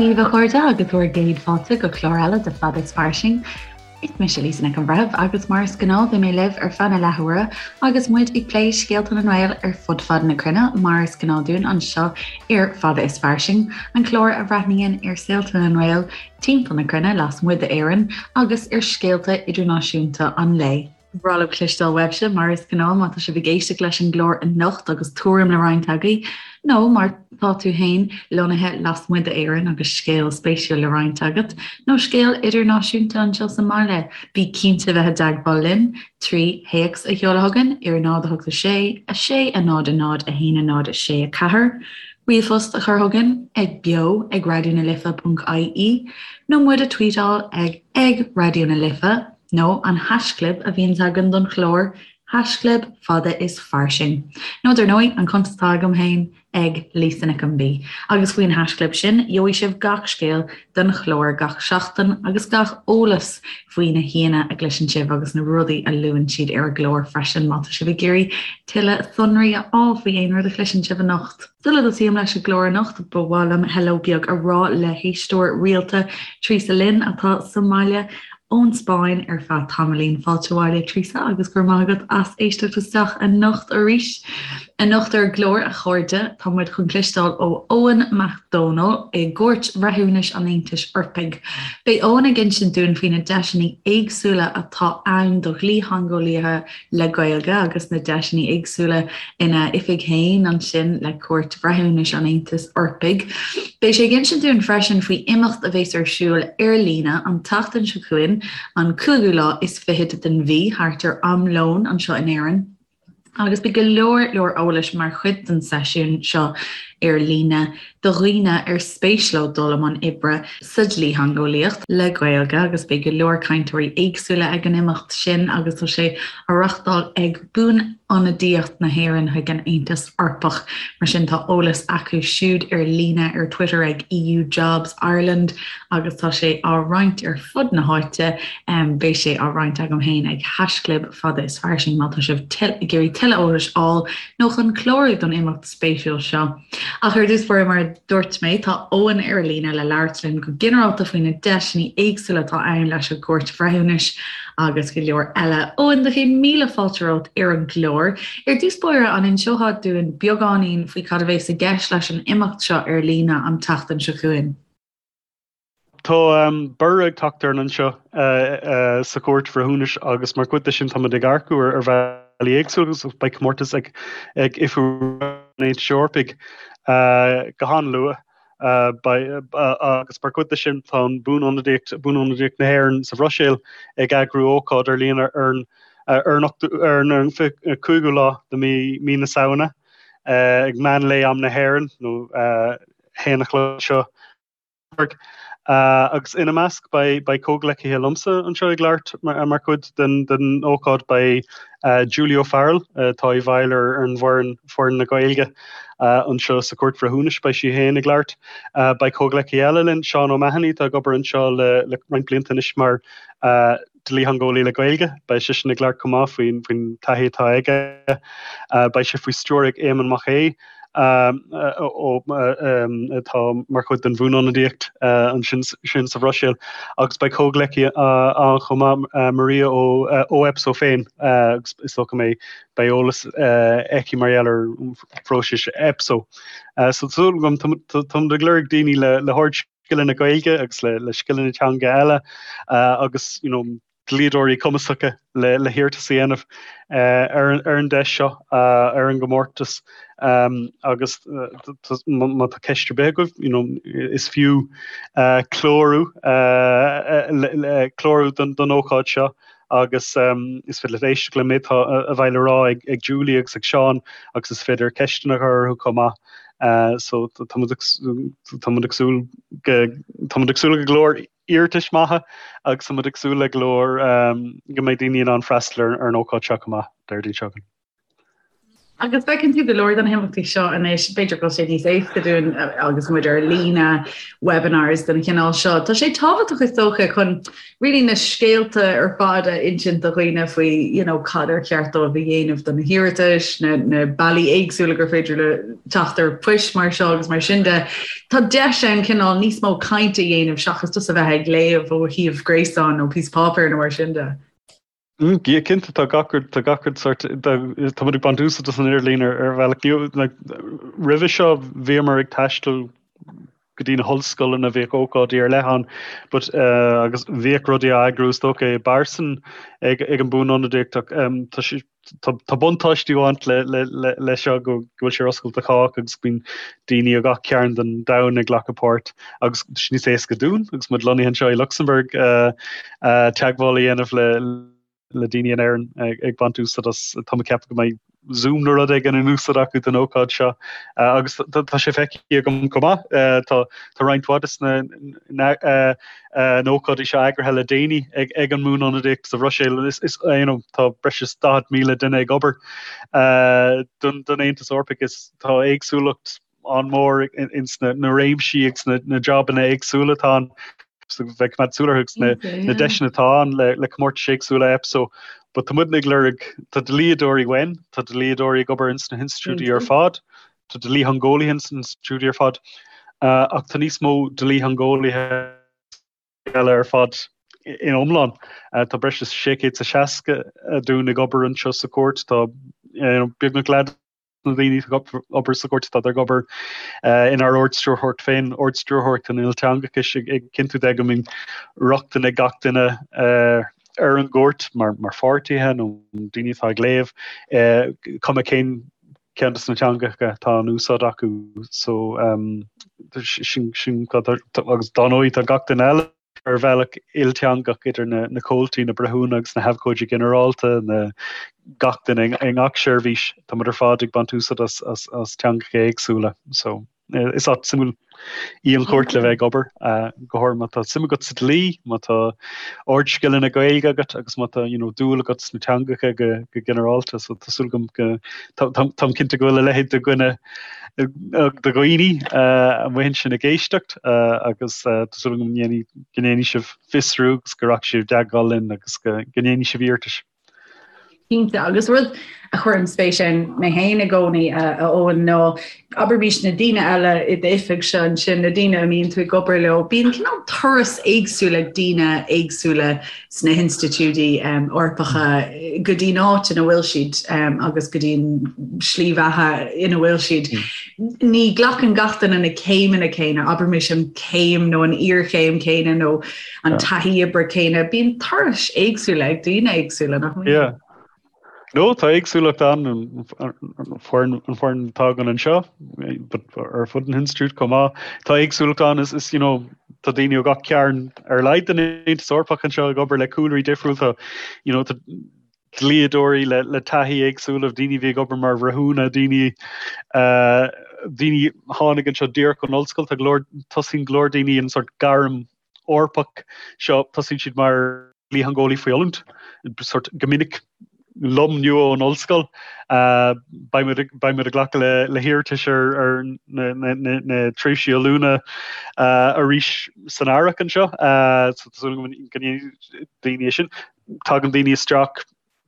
daoibh a chairde agus bhur gcéad fáilte go clár eile de Fada is Fairsing. Is mise Lisa Nic an Bhreithimh agus mar is gnáth beidh mé libh ar feadh na leathuaire agus muid ag plé scéalta na nGael ar fud fad na cruinne mar is gnáth dúinn anseo ar Fada is Fairsing, an clár a bhreathnaíonn ar saolta na nGael timpeall na cruinne lasmuigh d'Éirinn agus ar scéalta idirnáisiúnta an lae. Ba bhreá liom cloisteáil uaibhse, mar is gnáth, má tá sibh ag éisteacht leis an gclár anocht agus tuairim le roinnt agaibh, nó má tá tú féin lonnaithe lasmuigh d'Éirinn agus scéal spéisiúil le roinnt agat, nó scéal idirnáisiúnta anseo sa mbaile, bí cinnte bheith i dteagmháil linn trí théacs a sheoladh chugainn ar 0 8 6 6 0 0 1 0 6 4, ríomhphost a chur chugainn ag beo ag raidionalife.ie nó muid a tweetáil ag ag Raidió na Life. Nó an haischlib a bhíonns againn don chlár, haischlib fada is fairsing. Nó dar ndóigh, an cuntas atá agam féin, ag Lisa Nic an B. Agus faoin haischlib sin, gheobhaidh sibh gach scéal don chlár gach seachtain agus gach eolas faoi na haíonna a gcloiseann sibh agus na rudaí a luann siad ar an gclár freisin má tá sibh ag iarraidh tuilleadh sonraí a fháil faoi aon rud a chloiseann sibh anocht. Sula dtosaím leis an gclár anocht, ba mhaith liom hello beag a rá le héisteoir rialta, Teresa Lynn, atá sa mbaile ón Spáinn ar feadh tamaillín. Fáilte abhaile, Teresa, agus go raibh maith agat as éisteacht isteach anocht arís. Anocht ar an gclár, a chairde, tá muid chun cloisteáil ó Eoin Mac Dónaill i gCúirt Bhreithiúnais an Aontais Eorpaigh. Beidh Eoin ag insint dúinn faoi na deiseanna éagsúla atá ann do dhlítheangeolaithe le Gaeilge agus na deiseanna éagsúla ina oifig féin ansin le Cúirt Bhreithiúnais an Aontais Eorpaigh. Beidh sé ag insint dúinn freisin faoi imeacht a bheas ar siúl ar líne an tseachtain seo chugainn, an cúigiú lá is fichead den mhí, thart ar am lóin anseo in Éirinn. Agus beidh go leor leor eolais mar chuid den seisiún seo ar líne do dhaoine ar spéis leo dul i mbun oibre sa dlítheangeolaíocht le Gaeilge agus beidh go leor cainteoirí éagsúla ag an imeacht sin agus tá sé á reachtáil ag Buanionadaíocht na hÉireann chuig an Aontas Eorpach. Mar sin tá eolas acu siúd ar líne ar Twitter ag EU Jobs Ireland agus tá sé á roinnt ar fud na háite. Beidh sé á roinnt agam féin ag haischlib fada is fairsing má tá sibh ag iarraidh tuilleadh eolais a fháil nó chun clárú don imeacht spéisiúil seo. Ach ar dtús báire, mar a dúirt mé, tá Eoin ar líne le labhairt linn go ginearálta faoi na deiseanna éagsúla atá ann leis an gCúirt Bhreithiúnais agus go leor eile. Eoin, do chéad míle fáilte romhat ar an gclár. Ar dtús báire, an inseofá dúinn beagáinín faoi cad a bheas i gceist leis an imeacht seo ar líne an tseachtain seo chugainn? Tá borradh ag teacht orainn anseo sa Chúirt Bhreithiúnais agus mar chuid de sin táimid ag earcú ar bhealaí éagsúla agus beidh comórtas ag Oifig an Aontais Eorpaigh go han-luath agus mar chuid de sin tá an Buanionadaíocht, Buanionadaíocht na hÉireann sa Bhruiséil ag eagrú ócáid ar líne ar an ar an 5ú lá de mí na Samhna ag meán lae am na hÉireann nó 1 a chlog anseo. Agus ina measc beidh comhghleacaithe liomsa anseo ag labhairt mar chuid den ócáid, beidh Julie O'Farrell, atá i bhfeighil ar an bhfoireann, foireann na Gaeilge anseo sa Chúirt Bhreithiúnais, beidh sí féin ag labhairt. Beidh comhghleacaí eile linn, Seán O'Mahony, atá ag obair anseo le roinnt blianta anois mar dlítheangeolaí le Gaeilge. Beidh seisean ag labhairt chomh maith faoin taithí atá aige. Beidh sé faoi stiúir ag Éamonn Mac Aodha, atá mar chuid den bhuanionadaíocht ansin sin sa Bhruiséil. Agus beidh comhghleacaí ann chomh maith, Maria ó EPSO féin, agus is dócha go mbeidh beidh eolas aici mar gheall ar phróisis EPSO. So tá súil agam, táimid ag lorg daoine le hard scileanna Gaeilge agus le scileanna teanga eile agus you know, dlíodóirí cumasacha le, le hiarratas a dhéanamh ar, ar an deis seo, ar an gcomórtas agus má tá ceist ar bith agaibh, you know, is fiú clárú clárú don, don ócáid seo agus is féidir leat éisteacht le méid atá a bheidh le rá ag, ag Julie agus ag Seán agus is féidir ceisteanna a chur orthu chomh maith. So tá muid ag súil go tá muid ag súil le go leor iarratais maithe agus tá muid ag súil le go leor go mbeidh daoine in ann freastal ar an ócáid seo chomh maith, Déardaoin seo chugainn. Agus feiceann tú go leor de na himeachtaí seo anois, b'fhéidir go bhfuil sé níos éasca dúinn agus muid ar líne, webinars den chineál seo. Tá sé tábhachtach is dócha chun really na scéalta ar fad a insint do dhaoine faoi you know, cad ar cheart dóibh a dhéanamh do na hiarratais, na, na bealaí éagsúla gur féidir le teacht ar phoist mar seo agus mar sin de. Tá deis ann cineál níos mó cainte a dhéanamh seachas just a bheith ag léamh ó shuíomh gréasáin nó píosa páipéir nó mar sin de. Yeah, cinnte, tá gach rud, tá gach rud sort, tá muid ag baint úsáid as an idirlíon ar ar bhealach nua. Like, roimhe seo bhíomar ag taisteal go dtí na hollscoileanna, bhíodh ócáidí ar leith ann, but uh, agus bhíodh rudaí á eagrú is dócha i bpearsan ag, ag an Bhuanionadaíocht ach um, tá sé, tá, tá buntáistí ag baint le, le, le, le seo go, go bhfuil sé ar oscailt do chách agus bíonn daoine ó gach cearn den domhan ag glacadh páirt agus tá sé níos éasca dúinn agus muid lonnaithe anseo i Lucsamburg uh, teagmháil a dhéanamh le le daoine in Éirinn ag baint úsáid as, tá mé ag ceapadh go mbeidh Zoom nó rud éigin in úsáid acu don ócáid seo agus tá sé feicthe agam chomh maith, tá tá roinnt mhaith de na na hócáidí seo eagraithe le déanaí ag ag an mBuanionadaíocht sa Bhruiséil is is you know tá breis is 40,000 duine ag obair don don Aontas Eorpach is tá éagsúlacht an-mhór ins na réimsí agus na jabanna éagsúla atá ann. So bheith ag coimeád súil orthu agus na deiseanna atá ann le comórtais éagsúla EPSO. But tá muidne ag lorg, tá dlíodóirí uainn, tá dlíodóirí ag obair ins na hinstitiúidí ar fad, tá dlítheangeolaithe ins na hinstitiúidí ar fad, ach tá níos mó dlítheangeolaithe eile ar fad in iomlán. Tá breis is 660 dúinn ag obair anseo sa chúirt, tá beagnach leath na daoine atá ag obair sa chúirt, tá ag obair inár Ard-Stiúrthóireacht féin, Ard-Stiúrthóireacht an Ilteangachais, ag cinntiú de go mbíonn rochtain ag gach duine ar an gcúirt mar pháirtithe nó daoine atá ag léamh, cuma cén ceann de na teangacha atá in úsáid acu. So, sin, sin, agus dá ndóigh tá gach duine eile. ar bhealach ilteangach idir na comhaltaí, na breithiúna agus na habhcóidí ginearálta, na gach duine i ngach seirbhís. Tá muid ar fad ag baint úsáid as teangacha éagsúla. So is áit suimiúil í an chúirt le bheith ag obair, go háirithe má tá suim agat sa dlí, má tá ardscileanna Gaeilge agat agus má tá you know, dúil agat sna teangacha go, go ginearálta. So tá súil agam go táim cinnte go bhfuil a leithéid de dhuine de dhaoine amuigh ansin ag éisteacht agus tá súil agam go ndéanfaidh sibh fiosrú agus go rachaidh sibh i dteagmháil linn agus go ndéanfaidh sibh iarratais. Cinnte, agus rud a chuireann spéis ann mé féin i gcónaí, a Eoin, ná abraimis na daoine eile i d'oifigse ansin, na daoine a mbíonn tú ag obair leo, bíonn cineál turas éagsúil ag daoine éagsúla sna hinstitiúidí Eorpacha go dtí'n áit ina bhfuil siad agus go dtí'n slí bheatha ina bhfuil siad. Ní ghlacann gach duine na céimeanna céanna, abraimis an chéim nó an iarchéim chéanna nó an taithí oibre céanna. Bíonn turais éagsúla ag daoine éagsúla, nach mbíonn? No, tá éagsúlacht ann, an foireann an foireann atá againn anseo, but ar fud an institiúid chomh maith. Tá éagsúlacht ann, is, is, you know, tá daoine ó gach cearn ar a laghad den Aontas Eorpach anseo ag obair le cúlraí difriúil, tá, you know, tá dlíodóirí le, le taithí éagsúla, daoine a bhí ag obair mar bhreithiúna, daoine, uh, daoine a tháinig anseo díreach ón ollscoil, tá go leor, tosaíonn go leor daoine an sort gairm Eorpach seo, tosaíonn siad mar dhlítheangeolaí faoi oiliúint, sort go minic lom nua ón ollscoil. Beidh muid beidh muid ag glacadh le le hiarratais ar ar na na na na tréimhsí oiliúna arís san earrach anseo. So tá súil agam go ndéanfaidh daoine é sin. Tagann daoine isteach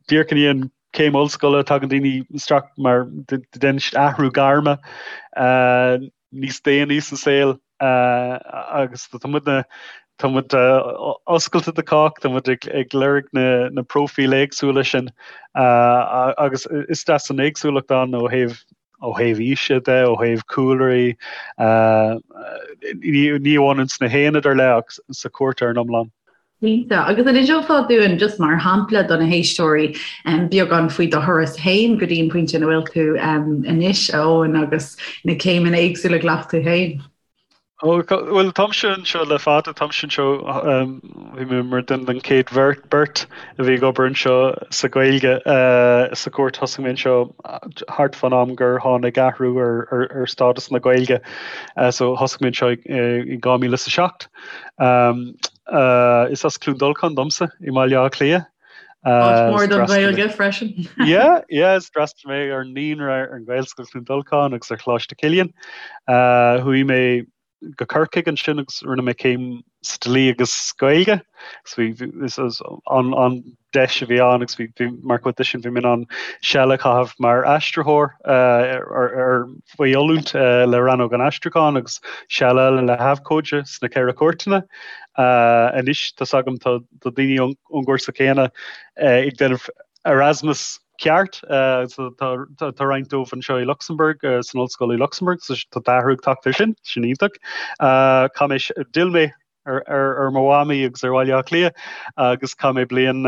díreach i ndiaidh an céim ollscoile, tagann daoine isteach mar déanann siad athrú gairme níos déanaí sa saol. Agus tá muidne, tá muid oscailte do chách, tá muid ag lorg na na próifíl éagsúla sin agus is deas an éagsúlacht ann ó thaobh ó thaobh aoise de, ó thaobh cúlraí, ní ní amháin ins na haonaid ar leith ach sa chúirt ar an iomlán. Cinnte. Agus an inseofá dúinn, just mar shampla do na héisteoirí, beagán faoi do thuras féin go dtí an pointe ina bhfuil tú anois, a Eoin, agus na céimeanna éagsúla a ghlac tú féin? Ó, bhuel, táimse anseo le fada, táimse anseo, bhí mé mar duine den chéad bheirt, beirt a bhí ag obair anseo sa Ghaeilge sa chúirt. Thosaigh mé anseo thart fán am gur tháinig athrú ar, ar, ar stádas na Gaeilge, so thosaigh mé anseo i 2007. Is as Cluain Dolcáin domsa i mBaile Átha Cliath. Áit mhór don Ghaeilge freisin. Yeah, yeah, is d'fhreastail mé ar an naíonra ar an Ghaelscoil Chluain Dolcáin agus ar Choláiste Chilliain. Chuaigh mé go Corcaigh ansin agus rinne mé céim sa dlí agus Gaeilge. So bhí is an an deis a bhí ann agus bhí bhí mar chuid de sin bhí mé in ann seal a chaitheamh mar aistritheoir ar ar faoi oiliúint le Rannóg an Aistriúcháin agus seal eile le habhcóide sna Ceithre Cúirteanna. Anois tá's agam tá tá daoine ón ón gcúrsa céanna ag déanamh Erasmus ceart. Tá roinnt dóibh anseo i Lucsamburg, san ollscoil i Lucsamburg, so tá athrú ag teacht ar sin, sin iontach. Chaith mé, d'fhill mé ar mo mhamaí agus ar Bhaile Átha Cliath agus chaith mé bliain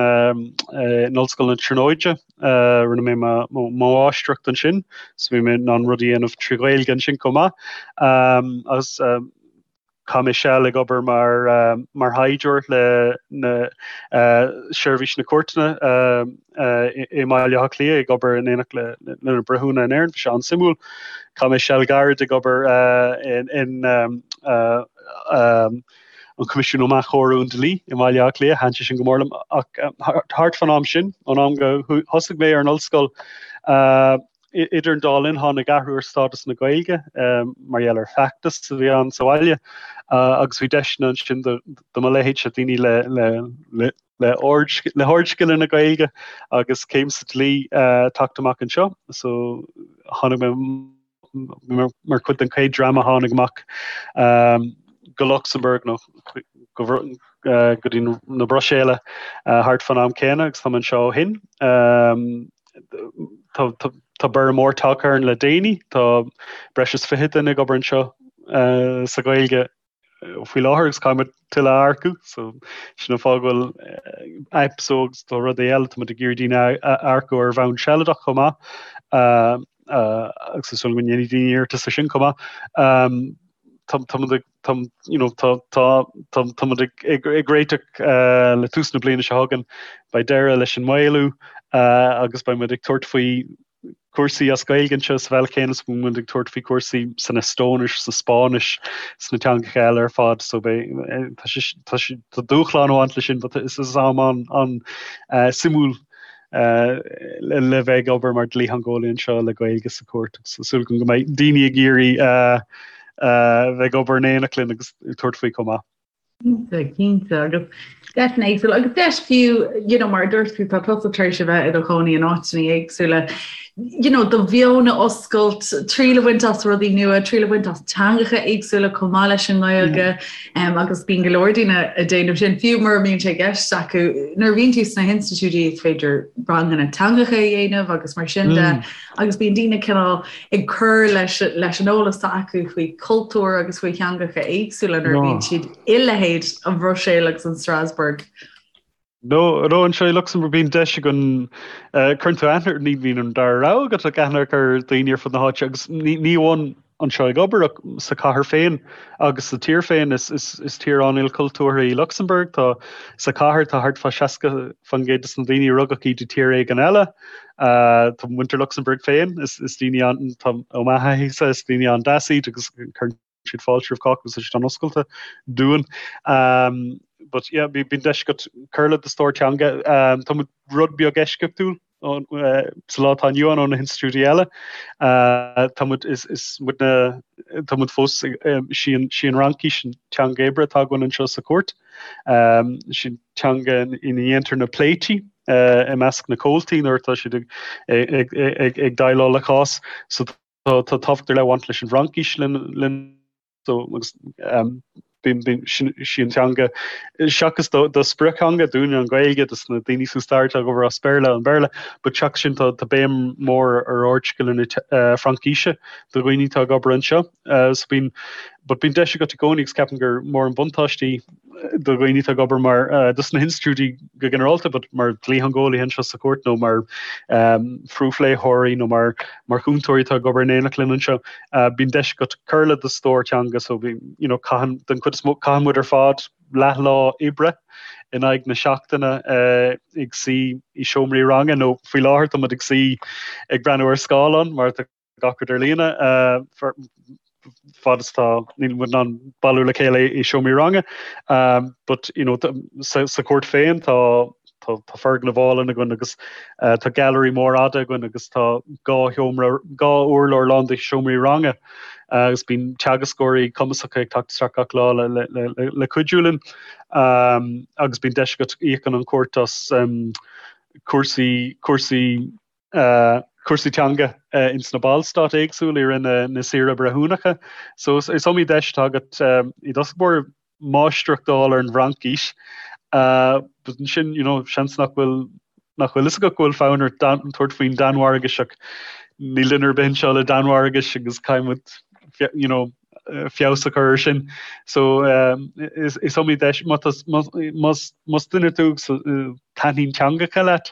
in Ollscoil na Tríonóide. Rinne mé mo mháistreacht ansin, so bhí mé in ann rudaí a dhéanamh trí Ghaeilge ansin chomh maith. Agus Chaith mé seal ag obair mar mar thaighdeoir le na Seirbhís na Cúirteanna i mBaile Átha Cliath, ag obair in éineacht le na breithiúna in Éirinn. Bhí sé an-suimiúil. Chaith mé seal gairid ag obair in an Coimisiún um Athchóiriú an Dlí i mBaile Átha Cliath. Thaitin sé sin go mór liom. Ach thart fán am sin, ón am go thosaigh mé ar an ollscoil, Idir an dá linn, tháinig athrú ar stádas na Gaeilge mar gheall ar feachtas a bhí ann sa bhaile agus bhí deiseanna ansin do mo leithéidse, daoine le le hardscileanna Gaeilge agus céim sa dlí teacht amach anseo. So tháinig mé mar chuid den chéad dream a tháinig amach go Lucsamburg nó go dtí na Bruiséile thart fán am céanna agus tá mé anseo ó shin. Tá borradh mór tagtha orainn le déanaí. Tá breis is 20 duine ag obair anseo sa Ghaeilge faoi láthair agus caithfidh muid tuilleadh a earcú. So sin an fáth go bhfuil EPSO agus tá rudaí eile, tá muid ag iarraidh daoine a earcú ar bhonn sealadach chomh maith agus is dóigh go ndéanfaidh daoine iarratas ar sin chomh maith. Tá muid ag tá you know tá tá tá tá muid ag ag ag réiteach le tús na bliana seo chugainn, beidh deireadh leis an maolú agus beidh muid ag tabhairt faoi cúrsaí as Gaeilge anseo sa bhealach céanna is a bhíonn muid ag tabhairt faoi cúrsaí san Eastóinis, sa Spáinnis, sna teangacha eile ar fad. So beidh tá sé tá sé tá dúshlán ag baint leis sin but is is am an an suimiúil le bheith ag obair mar dlítheangeolaí anseo le Gaeilge sa chúirt agus tá súil agam go mbeidh daoine ag iarraidh bheith ag obair in éineacht linn agus tabhairt faoi chomh maith. Cinnte, cinnte agus deiseanna éagsúla agus deis fiú you know, mar a dúirt tú tá tusa tar éis a bheith i do chónaí in áiteanna éagsúla you know, do mheon a oscailt, triail a bhaint as rudaí nua, triail a bhaint as teangacha éagsúla chomh maith leis an nGaeilge um, agus bíonn go leor daoine ag déanamh sin fiú mura mbíonn sé i gceist acu nuair a bhíonn tú sna hinstitiúidí is féidir ranganna teangacha a dhéanamh agus mar sin de mm. agus bíonn daoine cineál ag cur leis leis an eolas atá acu faoi chultúr agus faoi theangacha éagsúla nuair a bhíonn siad i leithéid an Bhruiséil agus an Strasbourg. No, no, anseo i Lucsamburg bíonn deis againn, cuireann tú aithne, ní bhíonn an dara rogha agat ach aithne a chur ar dhaoine ar fud na háite agus ní ní amháin anseo ag obair ach sa chathair féin agus sa tír féin. Is is is tír an-ilchultúrtha í Lucsamburg. Tá sa chathair tá thart fá 60% de na daoine a rugadh iad i tír éigin eile. Tá muintir Lucsamburg féin, is is daoine an tá ó m'thaithísa, is daoine an-deas iad agus cuireann siad fáilte roimh chách agus tá siad an-oscailte dúinn. But yeah, bíonn deis agat cur le do stór teanga. Tá muid rud beag eisceachtúil sa lá atá inniu ann ó na hinstitiúidí eile. Tá muid is is muid na tá muid fós sí an sí an Fhraincis an teanga oibre atá againn anseo sa chúirt. Sí an teanga ina ndéantar na pléití i measc na comhaltaí nuair atá siad ag ag ag ag déileáil le cás. So Tá tábhacht ar leith ag baint leis an bhFraincis linn so agus bíonn sí an teanga seachas do sprioctheanga dúinne an Ghaeilge dos na daoine is stair atá ag obair as Béarla an Béarla, but seachas sin tá béim mór ar ardscileanna Fraincise do dhaoine atá ag obair anseo. So bíonn but bíonn deis agat i gcónaí agus ceapaim gur mór an buntáiste í do dhaoine atá ag obair mar dos na hinstitiúidí go ginearálta, but mar dhlítheangeolaithe anseo sa chúirt nó mar phrúfléitheoirí nó mar mar chúntóirí atá ag obair in éineacht linn anseo, bíonn deis agat cur le do stór teanga so bíonn, you know, caitheann, den chuid is mó, caitheann muid ar fad leathlá oibre in aghaidh na seachtaine ag suí i seomraí ranga nó faoi láthair tá muid ag suí ag breathnú ar scáileán mar tá gach rud ar líne fad is tá níl muid in ann bailiú le chéile i seomraí ranga. But you know sa chúirt féin tá. Tá foirgneamh álainn againn agus tá gailearaí mór fhada againn agus tá 2 sheomra, 2 urlár lán de sheomraí ranga agus bíonn teagascóirí cumasacha ag teacht isteach gach lá le cuidiú linn agus bíonn deis agat íocann an chúirt as cúrsaí, cúrsaí. cúrsaí teanga ins na ballstáit éagsúla i rith na saoire breithiúnacha. So is iomaí deis atá agat i dtosach báire máistreacht a fháil ar an bhFraincis. But ansin, you know, seans nach bhfuil nach bhfuil fhios agat go bhfuil fonn ort tabhairt faoin Danmhairgis ach níl duine ar bith anseo le Danmhairgis agus caithfidh muid, you know, feabhas a chur air sin. So is iomaí deis, más duine tú agus taitníonn teangacha leat,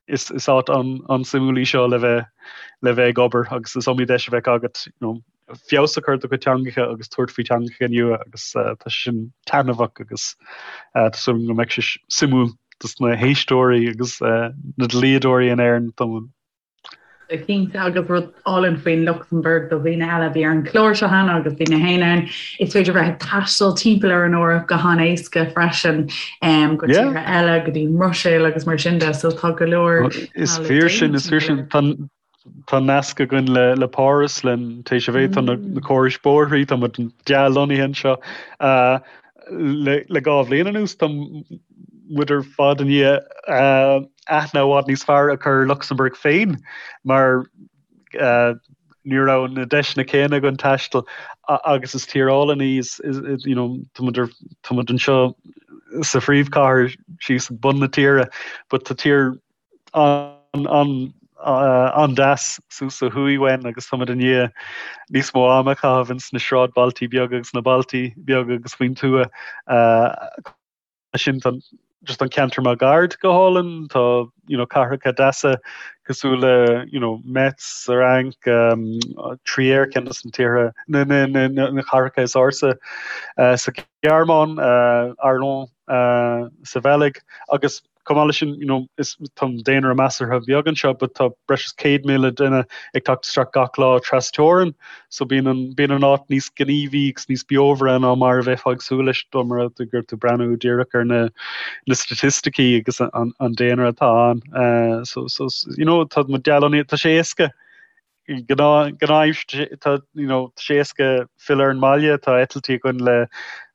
is áit an-suimiúil í seo le bheith le bheith ag obair agus is iomaí deis a bheidh agat you know, feabhas a chur ar do chuid teangacha agus tabhairt faoi teangacha nua agus tá sé sin taitneamhach agus tá súil agam go mbeidh sé suimiúil dos na héisteoirí agus na dlíodóirí in Éirinn. Cinnte, agus rud álainn faoin Lucsamburg do dhaoine eile a bhí ar an chlár seo cheana agus bhí mé féin ann, is féidir bheith ag taisteal timpeall ar an Eoraip go han-éasca freisin go tíortha eile, go dtí an mBruiséil agus mar sin de, so tá go leor Is fíor sin, is fíor sin. Tá nasc againn le Páras, le TGV, tá na córais bóithrí, tá muid dea-lonnaithe anseo. Le 2 bhliain anuas, tá muid ar fad i ndiaidh aithne i bhfad níos fearr a chur ar Lucsamburg féin mar ní raibh na deiseanna céanna againn taisteal agus is tír álainn í, you know, tá muid ar, tá muid anseo sa phríomhchathair síos ag bun na tíre but tá tír an-deas suas ó thuaidh uainn agus tá muid i ndiaidh níos mó ama a chaitheamh ins na sráidbhailtí beaga agus na bailtí beaga agus faoin tuath. Sin tá just an ceantar máguaird go hálainn, tá you know cathracha deasa cosúil le you know Metz sa Fhrainc, Trier ceann de na tíortha na na na na cathracha is ársa sa Ghearmáin, Arlon sa Bheilg agus Chomh maith leis sin, you know, is tá an daonra measartha beag anseo, but tá breis is 100,000 duine ag teacht isteach gach lá trasteorann, so bíonn an, bíonn an áit níos gníomhaí agus níos beomhaire ná mar a bheifeá ag súil leis dá mba rud é go raibh tú ag breathnú díreach ar na, na staitisticí agus an, an daonra atá ann. Uh, so, so, you know, tá muid dea-lonnaithe, tá sé éasca Gnáth-aimsir, tá you know tá sé éasca filleadh ar an mbaile, tá eitiltí againn le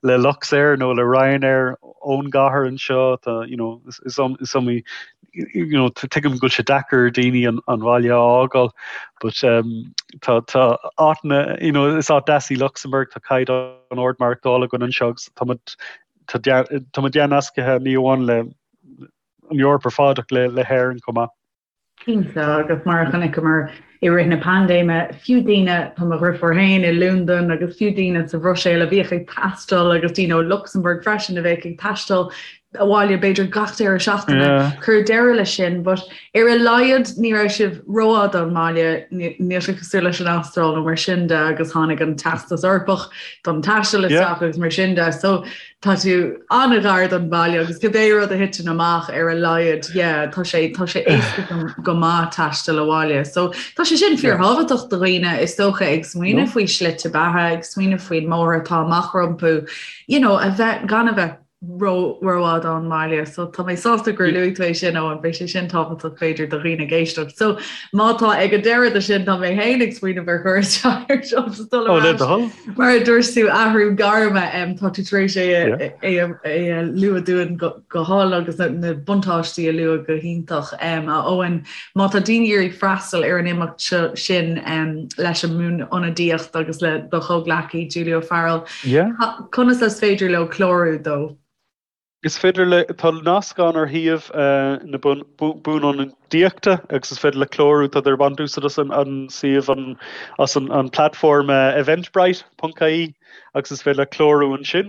le Luxair nó le Ryanair ón gcathair anseo, tá you know is is is iomaí you know tuigim go bhfuil sé deacair ar daoine an an bhaile a fhágáil but um tá tá áiteanna you know is áit deas í Lucsamburg, tá caighdeán ard maireachtála againn anseo agus tá muid tá tá muid dea-nascaithe ní amháin le an Eoraip ar fad ach le le hÉirinn chomh maith. Cinnte, agus mar a chonaiceamar i rith na paindéime, fiú daoine, tá mo dheirfiúr féin i Londain agus fiú daoine sa Bhruiséil a bhíodh ag taisteal agus daoine ó Lucsamburg freisin a bheadh ag taisteal abhaile b'fhéidir gach deireadh seachtaine, cuireadh deireadh leis sin, but ar a laghad ní raibh sibh rófhada ón mbaile, níl sé cosúil leis an Astráil nó mar sin de agus tháinig an Teastas Eorpach don taisteal isteach agus mar sin de. So tá tú an-ghar don bhaile agus cibé rud a thiteann amach ar a laghad, yeah, tá sé tá sé éasca go maith taisteal abhaile. So tá sé sin fíorthábhachtach do dhaoine is dócha ag smaoineamh faoi slite beatha, ag smaoineamh faoin mbóthar atá amach rompu, you know, a bheith gan a bheith ró rófhada ón mbaile. So tá mé sásta gur luaigh tú é sin Eoin, beidh sé sin tábhachtach b'fhéidir do dhaoine ag éisteacht. So má tá ag an deireadh de sin tá mé féin ag smaoineamh ar chur isteach ar jobs is dul ar ais. Mar a dúirt tú athrú gairme, tá tú tar éis é a lua dúinn go hálainn agus na buntáistí a lua go hiontach. A Eoin, má tá daoine ag iarraidh freastal ar an imeacht seo sin leis an mBuanionadaíocht agus le do chomhghleacaí Julie O'Farrell, conas is féidir leo clárú dó? Is féidir le, tá nasc ann ar shuíomh na Buanionadaíochta agus is féidir le clárú, tá ag baint úsáid as an suíomh, an, as an platform Eventbrite ponc ie agus is féidir le clárú ansin.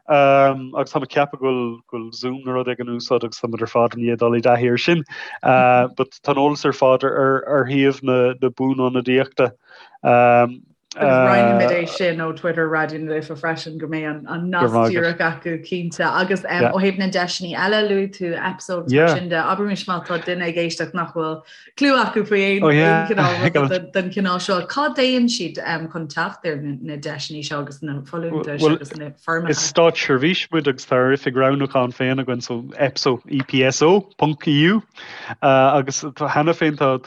Agus táim ag ceapadh go bhfuil, go bhfuil Zoom nó rud éigin in úsáid agus táimid ar fad i ndiaidh dul i dtaithí air sin. But tá an eolas ar fad ar, ar shuíomh na, na Buanionadaíochta. Agus roinnfimid é sin ó Twitter Raidió na Life freisin go mbeidh an nasc díreach acu cinnte. Agus ó thaobh na deiseanna eile, luaigh tú EPSO agus mar sin de, abraimis má tá duine ag éisteacht nach bhfuil cliú acu faoi aon chineál den chineál seo, cá dtéann siad chun teacht ar na deiseanna seo agus na folúntais agus na foirmeacha? Is státseirbhís muid agus tá ár oifig roghnúcháin féin againn, so EPSO, EPSO, ponc EU. Agus cheana féin tá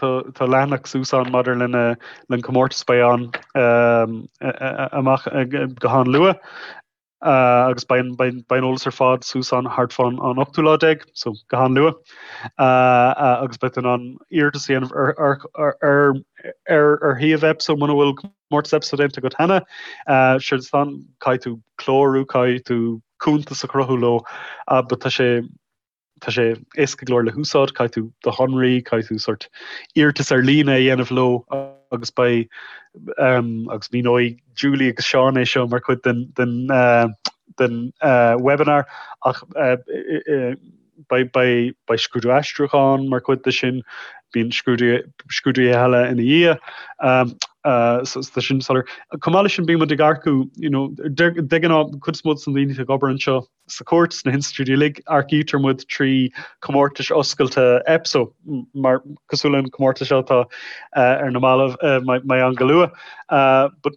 leathanach suas ann maidir lena an comórtas beidh ann amach go han-luath agus beidh an eolas ar fad suas ann thart fán an ochtú lá déag, so go han-luath agus beidh tú in ann iarratas a dhéanamh ar ar shuíomh EPSO muna bhfuil comórtas EPSO déanta agat cheana. Séard atá ann, caithfidh tú clárú, caithfidh tú cuntas a chruthú leo, but tá sé Tá sé éasca go leor le húsáid, caithfidh tú do shonraí, caithfidh tú sort iarratas ar líne a dhéanamh leo agus beidh agus míneoidh Julie agus Seán é seo mar chuid den den den webinar ach beidh beidh beidh scrúdú aistriúcháin mar chuid de sin, bíonn scrúdú scrúduithe eile ina dhiaidh. So tá sin soiléir. Chomh maith leis sin bíonn muid ag earcú you know de de ghnáth cuid is mó de na daoine atá ag obair anseo, Sa chúirt, sna hinstitiúidí uilig, earcaítear muid trí chomórtais oscailte EPSO, mar cosúil leis an chomórtas seo atá ar na mallaibh, mbeidh ann go luath. But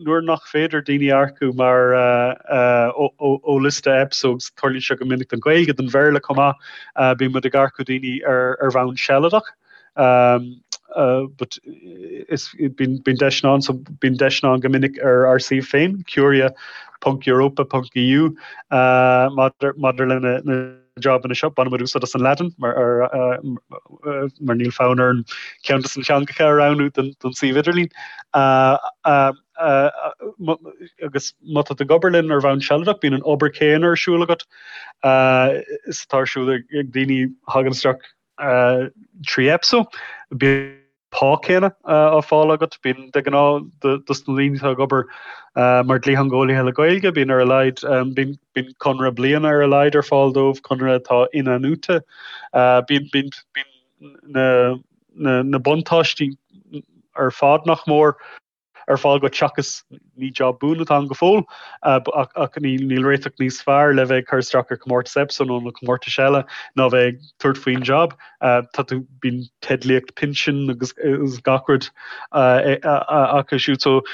nuair nach féidir daoine a earcú mar ó liosta EPSO, agus tarlaíonn seo go minic don Ghaeilge, don Bhéarla chomh maith, bíonn muid ag earcú daoine ar bhonn sealadach. But is bíonn deiseanna ann, so bíonn deiseanna ann go minic ar ár suíomh féin, curia.europa.eu, maidir le na jabanna seo. Baineann muid úsáid as an Laidin mar mar níl fonn orainn ceann de na teangacha a roghnú don suíomh idirlín. Agus má tá tú ag obair linn ar bhonn sealadach, bíonn an obair chéanna ar siúl agat is atá ar siúl ag daoine a thagann isteach 3 EPSO. Bíonn pá céanna á fáil agat. Bíonn de ghnáth dos na daoine atá ag obair mar dhlítheangeolaithe le Gaeilge, bíonn ar a laghad, bíonn bíonn conradh bliana ar a laghad ar fáil dóibh, conradh atá in-athnuaite. Bíonn bíonn bíonn na na na buntáistí ar fad nach mór. ar fáil duit seachas ní job buan atá ann go fóill ach níl réiteach níos fearr le bheith ag cur isteach ar chomórtas EPSO nó na comórtais eile ná bheith ag tabhairt faoin job. Tá tú bíonn teidlíocht pinsin agus gach rud acu siúd so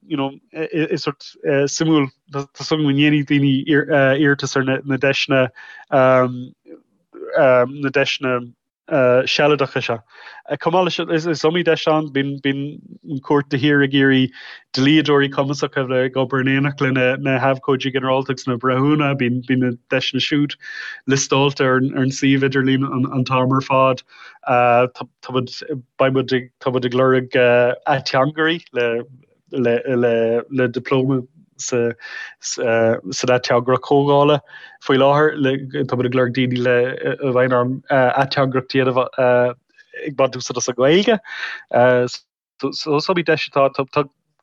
you know is sort suimiúil tá súil agam go ndéanfaidh daoine iarratas ar na deiseanna na deiseanna sealadacha seo. Chomh maith leis sin, is iomaí deis ann, bíonn an chúirt de shíor ag iarraidh dlíodóirí cumasacha a bheith ag obair in éineacht le na habhcóidí ginearálta agus na breithiúna, bíonn na deiseanna siúd liostáilte ar an suíomh idirlín an t-am ar fad. Tá muid, beidh muid, tá muid ag lorg ateangairí le le dioplóma sa san ateangaireacht chomhdhála faoi láthair. Tá muid ag lorg daoine le a bheidh in ann ateangaireacht a dhéanamh ag baint úsáid as an nGaeilge. So is iomaí deis atá tá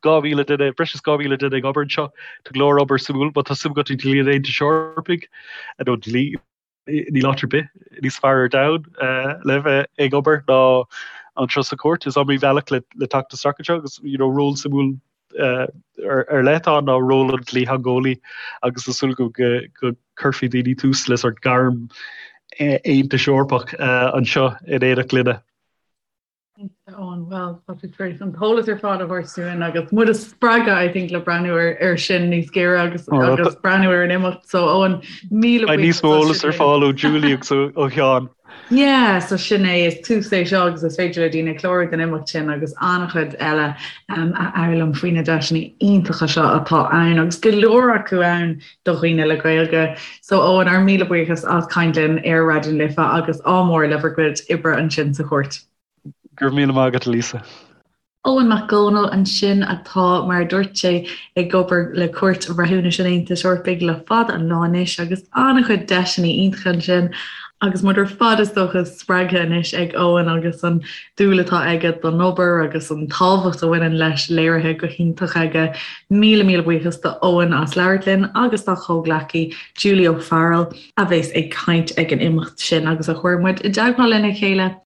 2,000 duine, breis is 2,000 duine ag obair anseo. Tá go leor obair suimiúil, má tá suim agat i dlí an Aontais Eorpaigh nó dlí Níl áit ar bith níos fearr ar domhan le bheith ag obair ná anseo sa chúirt. Is iomaí bealach le teacht isteach anseo agus you know ról suimiúil ar leith atá ann ná ról an dlítheangeolaí agus tá súil go go cuirfidh daoine tús le sort gairm Aontais Eorpach anseo in éineacht linne. Eoin, Bhuel, tá tú tar éis an t-eolas ar fad a thabhairt dúinn agus muid a spreagadh, I think, le breathnú ar, ar sin níos géire agus, oh, agus breathnú ar an imeacht. So, Eoin, míle buíochas. Níos mó eolas ar fáil ó Julie agus ó Sheán. Yeah, so sin é, is tús é seo agus is féidir le daoine clárú don imeacht sin agus an-chuid eile um, a fhoghlaim faoi na deiseanna iontacha seo atá ann agus go leor acu ann do dhaoine le Gaeilge. So Eoin, ár míle buíochas as caint linn ar Raidió na Life agus ádh mór le bhur gcuid oibre ansin sa chúirt. Go raibh míle maith agat, a Lisa. Eoin Mac Dhónaill ansin atá, mar a dúirt sé, ag obair le Cúirt Bhreithiúnais an Aontais Eorpaigh le fada an lá anois agus an-chuid deiseanna iontacha ansin agus muid ar fad is dócha spreagtha anois ag Eoin agus an dúil atá aige don obair agus an tábhacht a bhaineann leis léirithe go hiontach aige. Míle míle buíochas do Eoin as labhairt linn agus dá chomhghleacaí Julie O'Farrell a bheas ag caint ag an imeacht sin agus a chuir muid i dteagmháil lena chéile.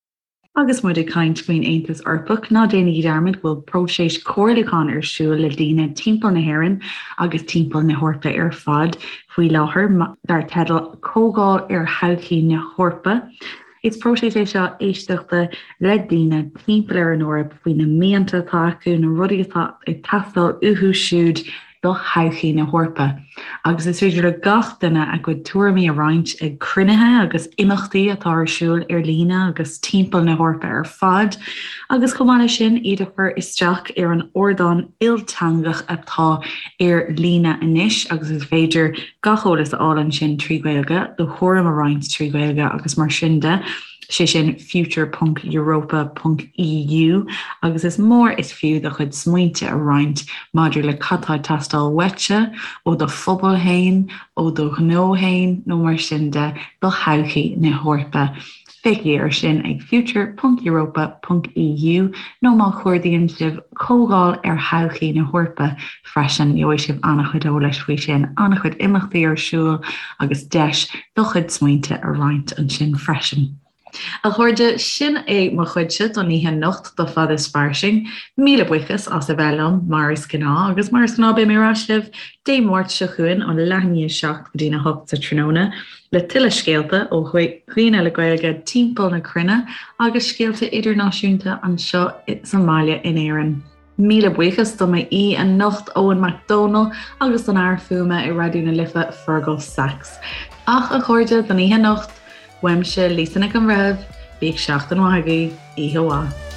Agus muid ag caint faoin Aontas Eorpach, ná déanaigí dearmad go bhfuil próiseas comhairliúcháin ar siúl le daoine timpeall na hÉireann agus timpeall na hEorpa ar fad faoi láthair, dar teideal 'Comhdháil ar Thodhchaí na hEorpa'. Is próiseas é seo éisteachta le daoine timpeall ar an Eoraip faoi na mianta atá acu, na rudaí atá ag teastáil uathu siúd do thodhchaí na hEorpa, agus is féidir le gach duine a gcuid tuairimí a roinnt ag cruinnithe agus imeachtaí atá ar siúl ar líne agus timpeall na hEorpa ar fad, agus chomh maith leis sin, iad a chur isteach ar an ardán ilteangach atá ar líne anois agus is féidir gach eolas a fháil ansin trí Ghaeilge, do thuairim a roinnt trí Ghaeilge agus mar sin de. sé sin future ponc europa ponc EU, agus is mór is fiú do chuid smaointe a roinnt maidir le cad tá ag teastáil uaitse, ó do phobal féin, ó do ghnó féin nó mar sin de, do thodhchaí na hEorpa. Féachaigí air sin ag future ponc europa ponc EU nó má chuardaíonn sibh Comhdháil ar Thodhchaí na hEorpa freisin, gheobhaidh sibh an-chuid eolais faoi sin, an-chuid imeachtaí ar siúl agus deis do chuid smaointe a roinnt ansin freisin. A chairde, sin é mo chuidse don oíche anocht do Fad is Fairsing. Míle buíochas as a bheith liom, mar is gnáth, agus mar is gnáth beidh mé ar ais libh Dé Máirt seo chugainn ó leath i ndiaidh a 7 go dtí'n 8 sa tráthnóna le tuilleadh scéalta ó dhaoine le Gaeilge timpeall na cruinne agus scéalta idirnáisiúnta anseo sa mbaile in Éirinn. Míle buíochas do m'aoi anocht Eoin Mac Dónaill agus don fhear fuaime i Raidió na Life, Fergal Sachs. Ach a chairde, don oíche anocht, uaimse Lisa Nic an Bhreithimh, bíodh seachtain mhaith agaibh, oíche mhaith.